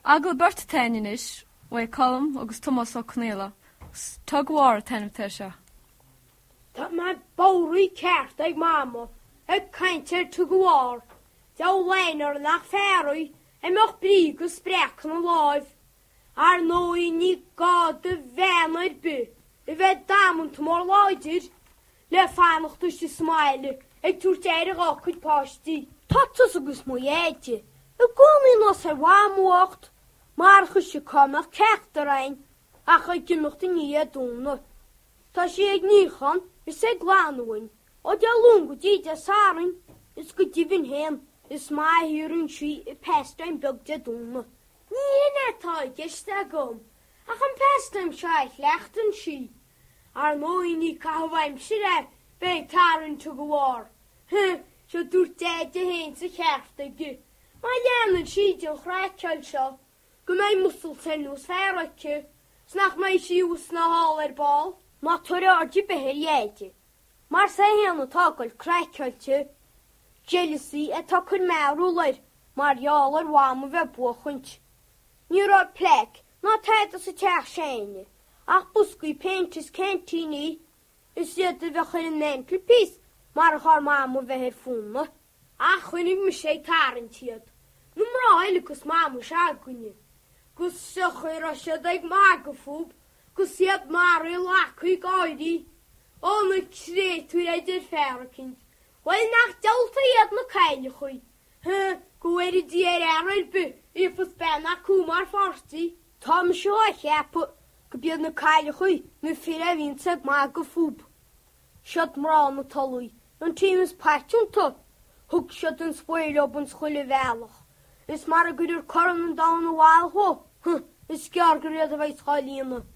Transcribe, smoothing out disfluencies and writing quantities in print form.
Agallamh beirte atá againn anois, uaidh Colm agus Tomás Ó Conaola, agus Tug o' War an t-ainm atá air seo. Tá mé bodhraithe ceart ag Mama ag caint ar Tug o' War, deabhal aithne uirthi nach fear í a mbeadh brí agus spreacadh ina láimh. Ar ndóigh ní gá do bhean ar bith a bheith damanta mór láidir le fanacht istigh sa mbaile ag tabhairt aire dhá cuid páistí. Tá tusa agus mo Dheaide i gcónaí anuas ar Mhamó bhocht, marach ise cá mbeadh ceachtar againn ach ag imeacht i ndiaidh éadomhna. Tá sí ag níochán is ag glanadh uainn ó Dé Luain go dtí Dé Sathairn is go deimhin féin is maith a shaothraíonn sí a pastime beag Dé Domhnaigh. Ní hin é atá i gceist agam ach an pastime seo a chleachtann sí. Ar ndóigh ní caitheamh aimsire é bheith ag tarraingt tug o' war. Huh, seo dúirt Deaide féin is an ceart aige, má leanann sí den chraiceáil seo, go mbeidh muscles ar nós fear aici, 's nach mbeidh sí abhus ná thall ar ball. Ná tabhair aird ar bith ar Dheaide, mar is é féin atá ag goil craiceáilte. Jealousy atá ag cur mearbhall air mar gheall ar Mham a bheith ag buachaint. Ní raibh plaic ná tada sa teach s'againne ach boscaí péinte is ceaintíní, is iad a bheadh ar an mantelpiece marach ár Mama a bheith ar fónamh. Ach choinnigh mise ag tarraingt iad, na mná eile 'gus Mama s'againne, 'gus seo chaoi a raibh siad ag magadh fúb 'gus iad maraithe lagtha ag gáirí. Ó na créatúir a deir fear eicínt, bhuel nach diabhalta iad na cailleachaí, Huh, go bhfóire Dia ar fhear ar bith a gheofas bean acu mar pháirtí. Tá mise á cheapadh go b'iad na cailleachaí na fir a bhíonns ag magadh fúb. Siad mná na Tulaí an team is paiteanta. Thug siad an svae leob ins chuile bhealach. Is mara gcuirear Corn an Domhain abhaile dhó, huh, is gearr gur iad a bheas dhá líonadh.